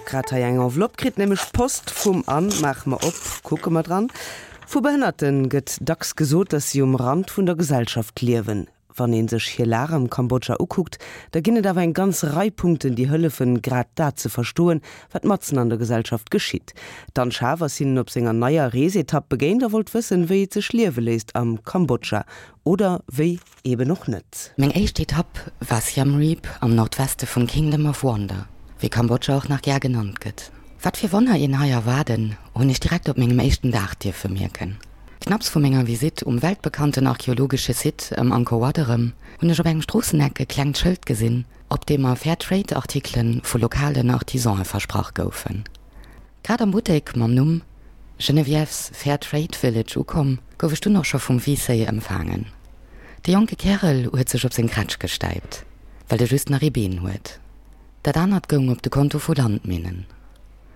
Grad hei eng Enveloppe kritt, nämlech Post vum Anne. Maache mer op, kucke mer dran. Vu Behënnerte gëtt dacks gesot, datt si um Rand vun der Gesellschaft liewen. Wann ee sech hir Lag am Kambodscha ukuckt, da ginn et awer eng ganz Rei Punkten, déi hëllefen, grad dat ze verstoen, wat matzen an der Gesellschaft geschitt. D'Anne Schaaf ass hinnen op senger neier Reesetapp begéint a wollt wëssen, wéi et sech liewe léisst am Kambodscha. Oder wéi eben och net. Meng éischt Etapp war Siem Reap am Nordweste vum Kingdom of Wonder, wéi Kambodscha och nach gär genannt gëtt. Wat fir Wonner een hei erwaarden, hunn ech direkt op mengem éischten Dag dierfe mierken. Knapps vu menger Visitt um weltbekannten archeologesche Site ëm Angkor Wat erëm, hunn ech op engem Stroosseneck e klengt Schëld gesinn, op deem mer Fair Trade Artikele vu lokalen Artisane versprach goufen. Grad am Buttek mam Numm Geneviève's Fair Trade Village ukomm, gouf ech dunn och scho vum Visey empfaangen. De jonke Kärel huet sech op seng Kretsch gestäipt, well e just nach ee Been huet. Dat anert goung op de Konto vu Landminnen,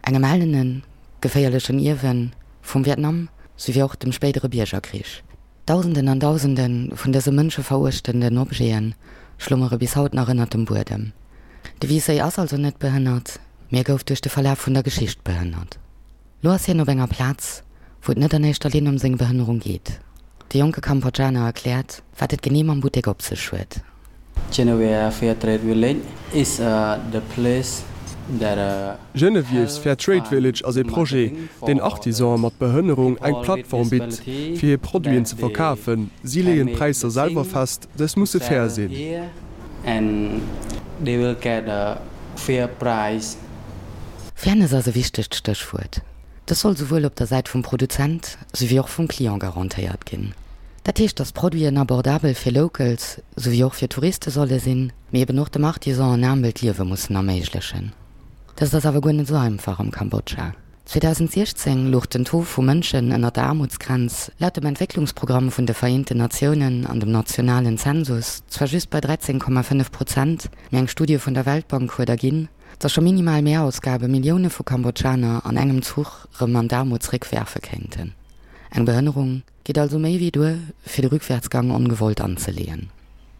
engem ellenen, geféierlechen Ierwe vum Vietnam souwéi och dem spéidere Biergerkrich. Dausenden an Dausende vun dëse mënscheveruechtenden Objete schlummere bis haut nach ënnert dem Buedem. De Wiessey ass also net behënnert, mee e gouf duerch de Verlaf vun der Geschicht behënnert. Lo ass hien op enger Plaz, wou et net an éischter Linn ëm seng Behënnerung geet. De jonke Kambodschaner erkläert, wat et genee mam Buttek op sech huet. Geneviève Fair Trade Village is the place that Genevieve's Fair Trade Village ass ee Projet, deen Artisane mat Behënnerung eng Plattform bitt, fir hir Produiten ze verkafen. Si leeën d'Präisser selwer fest, dës musse fair sinn. Fairness ass e wichtegt Stéchwuert. Dës soll souwuel op der Säit vum Produzent souwéi och vum Client garantéiert ginn. Dat heescht, datt d'Produiten abordabel fir Locals souwéi och fir Touriste solle sinn, mee eben och dem Artisan en aarmelt Liewe mussen erméiglechen. Dëst ass awer guer net esou einfach am Kambodscha. 2016 louch den Taux vu Mënschen ënner der Aarmutsgrenz laut dem Entwécklungsprogramm vun de Vereenten Natiounen an dem nationalen Zensus zwar just bei 13,5 Prozent, mee eng Studie vun der Weltbank huet erginn, datt scho minimal Mehrausgabe Millioune vu Kambodschaner an engem Zuch rëm an d'Aarmut zeréckwerfe kéinten. Eng Behënnerung geet also méi wéi duer, fir de Rückwärtsgang ongewollt anzeleeën.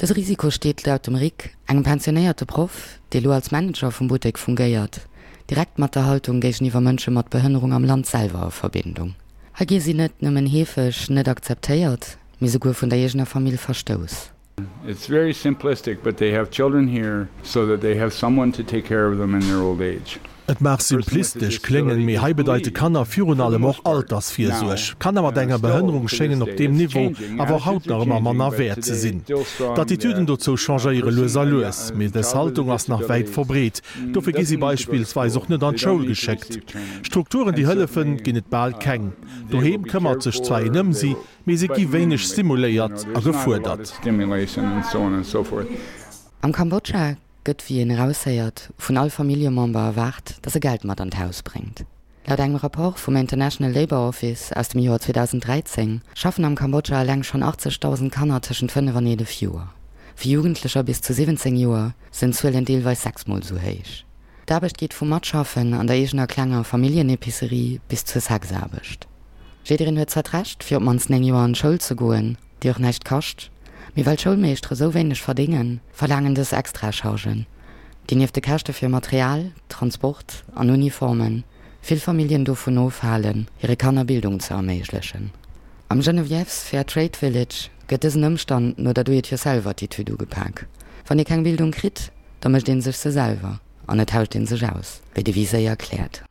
Dëse Risiko steet laut dem Rick, engem pensionéierte Proff, dee lo als Manager vum Buttek fungéiert, direkt mat der Haltung géigeniwwer Mënsche mat Behënnerung am Land selwer a Verbindung. Hei gi si net nëmmen heefeg net akzeptéiert, mee souguer vun der eegener Famill verstouss. It's very simplistic, but they have children here so that they have someone to take care of them in their old age. Et mag simplistesch kléngen, mee hei bedeite Kanner virun allem och Altersvirsuerg. Kanner mat enger Behënnerung schéngen op deem Niveau awer och haut nach ëmmer manner wäert ze sinn. D'Attitüden dozou changéiere lues a lues, mee dës Haltung ass nach wäit verbreet. Dofir gi si beispillsweis och net an d'Schoul geschéckt. Strukturen, déi hëllefen, ginn et bal keng. Doheem këmmert sech zwar een ëm si, mee se gi wéineg stimuléiert a gefuerdert. Am Kambodscha gëtt, wéi een eraushéiert, vun all Familljemember erwaart, datt e Geld mat an d'Haus bréngt. Laut engem Rapport vum International Labour Office aus dem Joer 2013 schaffen am Kambodscha eleng schonn 80.000 Kanner tëschent 5 an 11 Joer. Fir Jugendlecher bis zu 17 Joer sinn d'Zuelen deelweis sechsmol esou héich. D'Aarbecht geet vum Matschaffen an der eegener klenger Familljenepicerie bis zur Sexaarbecht. Jiddereen huet zwar d'Recht, fir op d'mannst 9 Joer an d'Schoul ze goen, déi och näischt kascht, mee well d'Schoulmeeschtere sou wéineg verdéngen, verlaangen dës Extrachargen, déi nieft de Käschte fir Material, Transport an Uniformen, vill Familljen dovun ofhalen, hire Kanner Bildung ze erméiglechen. Am Geneviève's Fair Trade Village gëtt dësen Ëmstand no der Do-it-yourself-Attitude ugepak. Wann ee keng Bildung kritt, da mécht ee sech se selwer an et tauscht ee sech aus, wéi de Visey erkläert.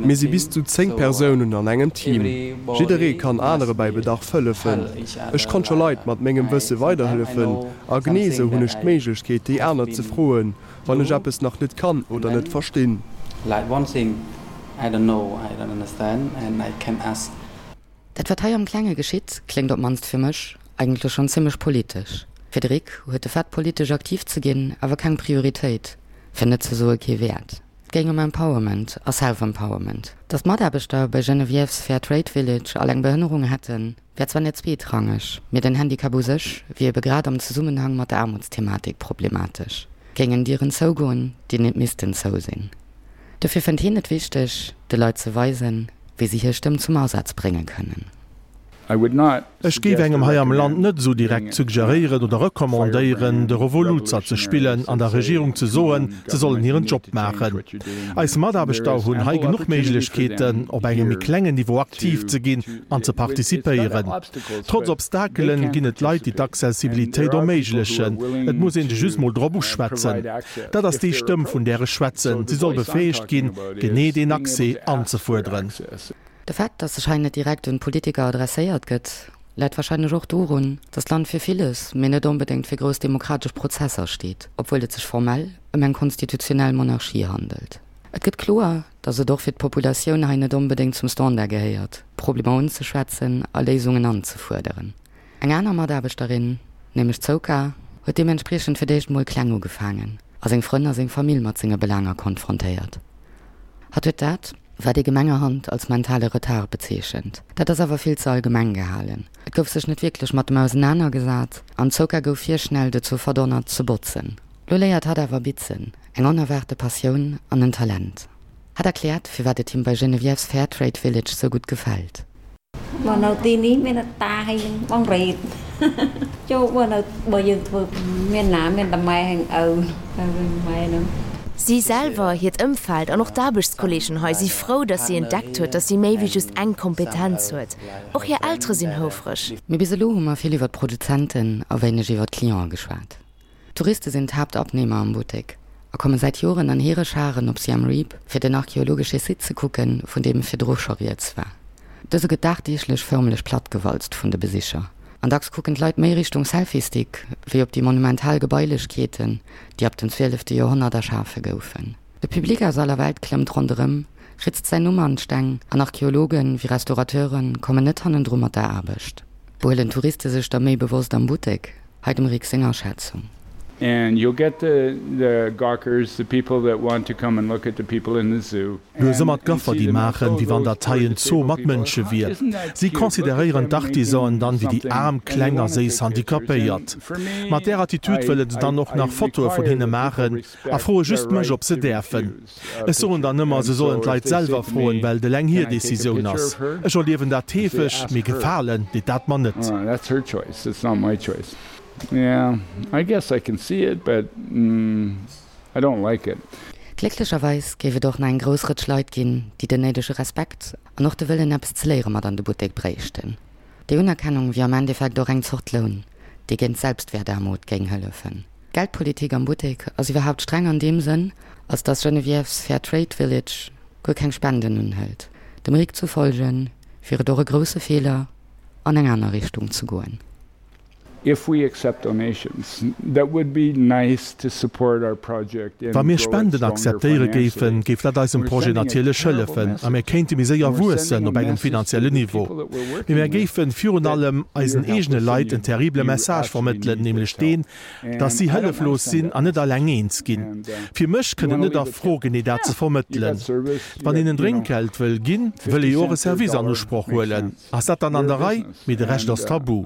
Mir si bis zu 10 Persounen an engem Team. Jidderee kann anere bäi Bedarf hëllefen. Ech konnt scho Leit mat mengem Wësse weiderhëllefen a genee esou hunn ech d'Méiglechkeet déi aner ze froen, wann ech eppes nach net kann oder net verstinn. Dat wat hei am Klenge geschitt, kléngt op mannst fir mech eigentlech schonn zimmlech politesch. Fir de Rick huet de Fait politesch aktiv ze ginn awer keng Prioritéit, fir net ze soe kee Wäert. Et géing ëm Empowerment a Self-Empowerment. Datt d'Mataarbechter bei Geneviève's Fair Trade Village all eng Behënnerung hätten, wär zwar net zweetrangeg, mee den Handicap u sech wier ebe grad am Zesummenhang mat der Aarmutsthematik problematesch. Géingen Dieren zougoen, déi net missten zou sinn. Dofir fënnt hien et wichteg, de Leit ze weisen, wéi si hir Stëmm zum Asaz brénge kënnen. Ech géif engem hei am Land net esou direkt suggeréieren oder recommandéieren, de Revoluzer ze spillen an der Regierung ze soen, se sollen hiren Job maachen. Eis Mataarbechter hunn hei genuch Méiglechkeeten, op engem méi klengen Niveau aktiv ze ginn an ze participéieren. Trotz Obstakelen ginn et Leit, déi d'Accessibilitéit erméiglechen. Et muss een se just mol drop uschwätzen. Dat ass déi Stëmm, vun där ech schwätzen. Si soll befäegt ginn, genee deen Accès anzefuerderen. De Fait, datt sech hei net direkt un d'Politiker adresséiert gëtt, läit warscheinlech och dorun, datt d'Land fir villes, mee net onbedéngt fir grouss demokratesch Prozesser steet, obwuel et sech formell ëm eng konstitutionell Monarchie handelt. Et gëtt kloer, datt et och fir d'Populatioun hei net onbedéngt zum Standard gehéiert, Problemer unzeschwätzen a Léisungen anzefuerderen. Eng aner Mataarbechterin, nämlech d'Souka, huet deementspriechend fir d'éischt mol kleng ugefaangen a seng Frënn a seng Famill mat senge Belaanger konfrontéiert. Hatt huet dat, wat ee gemengerhand als mentale Retard bezeechent. Dat ass awer vill ze allgemeng gehalen. Et gouf sech net wierklech mat em ausenanergesat an d'Souka gouf virschnell dozou verdonnert ze botzen. Lo léiert hatt awer bitzen, eng onerwaarte Passioun an en Talent. Hatt erkläert, firwat et him bei Geneviève's Fairtrade Village sou gutt gefält. បើនៅទីនេះមានតាហើយនឹងបងរ៉េតចូលបើនៅបើយើងធ្វើមានណាមានតែម៉ែហើយឪទៅវិញម៉ែនឹង Si selwer, hiert Ëmfeld an och d'Aarbechtskolleegen hei si frou, datt si entdeckt huet, datt si méi wéi just eng Kompetenz huet. Och hir Eltere sinn houfreg. Mee bis elo hu mer vill iwwer d'Produzenten a wéineg iwwer d'Clienten geschwat. Touriste sinn d'Haaptabnehmer am Buttek a komme säit Joren an hire Scharen op Siem Reap, fir den archeologesche Site ze kucken, vun deem virdru scho rieds war. Dëse gëtt dagdeeglech förmlech plattgewalzt vun de Besicher an dacks kucken d'Leit méi Richtung Selfie-Stick wéi op déi monumental Gebailechkeeten, déi ab dem zwielefte Joerhonnert erschafe goufen. De Public aus aller Welt klëmmt ronderëm, ritzt säin Numm an d'Steng an Archeologen wéi Restaurateure kommen net hannendru mat der Aarbecht. Behuelen d'Touriste sech da méi bewosst am Buttek? Hei dem Rick seng Aschätzung. And you'll get the the gawkers, the people that want to come and look at the people in the zoo. Du hues ëmmer d'Gaffer déi maachen, wéi wann dat hei en Zoo mat Mënsche wier. Si consideréieren d'Artisanen dann wéi déi aarm, kleng a séiss Handicapéiert. Mat där Attitude wëlle se dann och nach Fotoe vun hinne maachen a froe just mech, ob se däerfen. Ech soen dann ëmmer, se sollen d'Leit selwer froen, well et eleng hir Decisioun ass. Ech erliewen dat heefeg, mee gefalen deet dat mer net. Glécklecherweis géif et och nach eng grouss Rëtsch Leit ginn, déi den néidege Respekt an och de Wëllen eppes ze léiere mat an de Buttek bréichten. Déi Unerkennung wier am Endeffekt och eng Zort Loun, dee géint d'Selbstwäertaarmut géing hëllefen. D'Geldpolitik am Buttek ass iwwerhaapt streng an deem Sënn, als datt Geneviève's Fair Trade Village guer keng Spenden unhëlt. Dem Rick zu folge wier et och e grousse Feeler, an eng aner Richtung ze goen. If we accept donations, that would be nice to support our project and Wa mir grow it Spenden stronger akzeptéiere financially. géifen, géif dat eisem We're Projet sending a natierlech terrible hëllefen a message. mir kéinte méi séier And we're wuessen sending a op engem message to finanziellen the Niveau. people that we're Mee working mär with géifen virun that allem you're eisen eegene helpless and Leit you en terrible you Message actually vermëttelen, need this nämlech help. deen, dass And si I don't wanna hëlleflos send sinn that an net message. alleng eens ginn. And Fir mech you kënnt et wanna net a leave a Fro, tip? genee dat ze Yeah, you vermëttelen. got service, you Wann got, een en you know, Drénkgeld wëll ginn, wëll 50 ee jo och e cent to a Service an dollar Usproch makes huelen. sense. Ass dat dann an We're a der Rei? business Mee de Rescht and ass Tabu.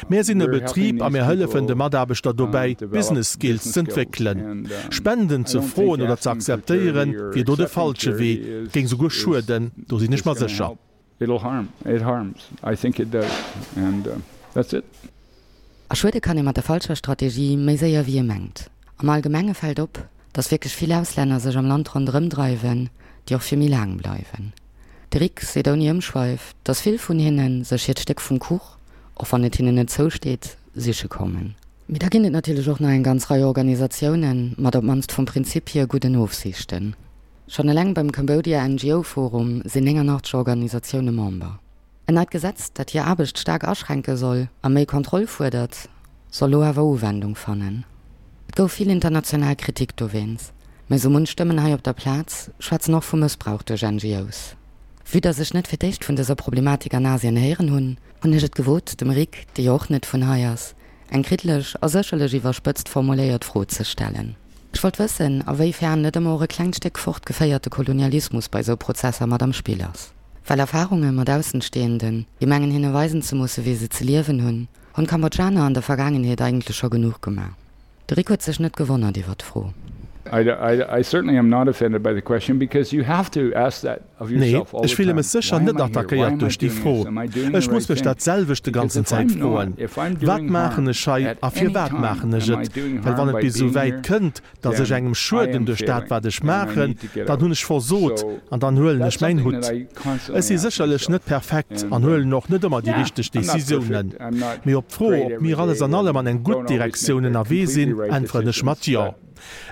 Mär sinn e Betrib a mär hëllefen de Mataarbechter dobäi, Business Skills z'entwéckelen. Spenden ze froen oder ze akzeptéieren, wier do de falsche Wee, géing souguer schueden, do sinn ech mer sécher. A schuede kann ee mat der falscher Strategie méi séier wéi ee mengt. Am Allgemenge fält op, datt wierklech vill Auslänner sech am Land ronderëm dreiwen, déi och fir méi laang bleiwen. De Rick seet ouni Ëmschweif, datt vill vun hinne sech hiert Stéck vum Kuch, och wann et hinnen net zousteet, siche kommen. Mee da ginn et natierlech och nach eng ganz Rei Organisatioune mat op d'mannst vum Prinzip hier gudden Ofsiichten. Schonn eleng beim Cambodia NGO Forum sinn 89 Organisatioune Member. En neit Gesetz, dat hir Aarbecht staark aschränke soll a méi Kontroll fuerdert, soll lo awer Uwendung fannen. Et gouf vill international Kritik dowéinst, mä sou munch Stëmmen hei op der Plaz schwätzen och vu Mëssbrauch duerch NGOs. Vue dass ech net fir d'éischt vun dëser Problematik an Asien héieren hunn, hunn ech et gewot, dem Rick, dee jo och net vun hei ass, eng kriddeleg a sécherlech iwwerspëtzt formuléiert Fro ze stellen. Ech wollt wëssen, a wéi fern net ëmmer och e klengt Stéck fortgeféierte Kolonialismus bei sou Prozesser mat am Spill ass. Well Erfarunge mat Aussenstehenden, déi mengen hinne weisen ze musse wéi se ze liewen hunn, hunn d'Kambodschaner an der Vergaangenheet eigentlech scho genuch gemaach. De Rick huet sech net gewonnert iwwer d'Fro. I certainly am not offended by the question because you have to ask that of yourself all the Nee, ech fille time. mech sécher Why am net I here? Why attackéiert am I duerch déi doing Fro. this? Am I doing the Ech muss right mech thing? dat selwecht de Because ganzen if Zäit I'm not, froen, if I'm Wat doing maachen harm ech hei at a any firwat time, maachen ech am I et? doing Well harm wann et by bis esou being wäit here? kënnt, datt ech Then engem I schueden am duerch dat failing wat ech and I maachen, need to get dann out. hunn ech versot So an dann huelen that's ech mäin something Hutt. that I Ech constantly si ask sécherlech myself. net perfekt an And huelen och net ëmmer déi yeah, richteg I'm not Decisiounen. perfect. I'm not Mee op d'Fro, great ob every mir alles day an allem and an eng gutt don't always make Direktioun the ënnerwee sinn, completely right äntweren ech mat decisions, Jo. but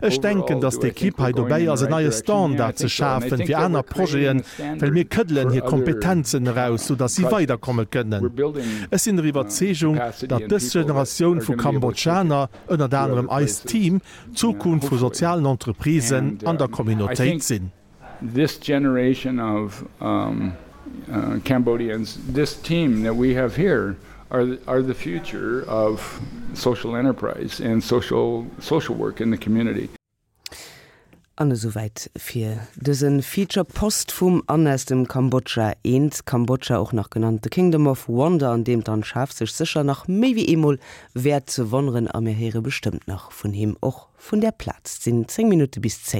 Ech denken, overall, datt do I think d'Ekipp we're hei going dobäi in the ass en right neie direction? Yeah, I Standard ze think so. And I schafen think fir that aner we're creating Projeten, a well standard mir këddelen for hir other Kompetenzen eraus, sou datt si projects. weiderkomme kënnen. We're building Ech sinn der Iwwerzeegung, capacity datt and dës people that Generatioun are vu gonna be able to take it Kambodschaner, ënnert to anerem other eist places, Team, yeah, d'Zukunft vu hopefully. sozialen Entreprisen And an der I Communautéit think sinn. this generation of um, uh, Cambodians, this team that we have here, are the, are the future of social enterprise and social social work in the community. An esouwäit fir dëse Feature Post vum Anne aus dem Kambodscha. Eent Kambodscha, och nach genannt The Kingdom of Wonder, an deem d'Anne Schaaf sech sécher nach méi wéi eemol wäert wonneren. A mir héiere bestëmmt nach vun him, och vun där Plaz. Et sinn 10 Minutte bis 10.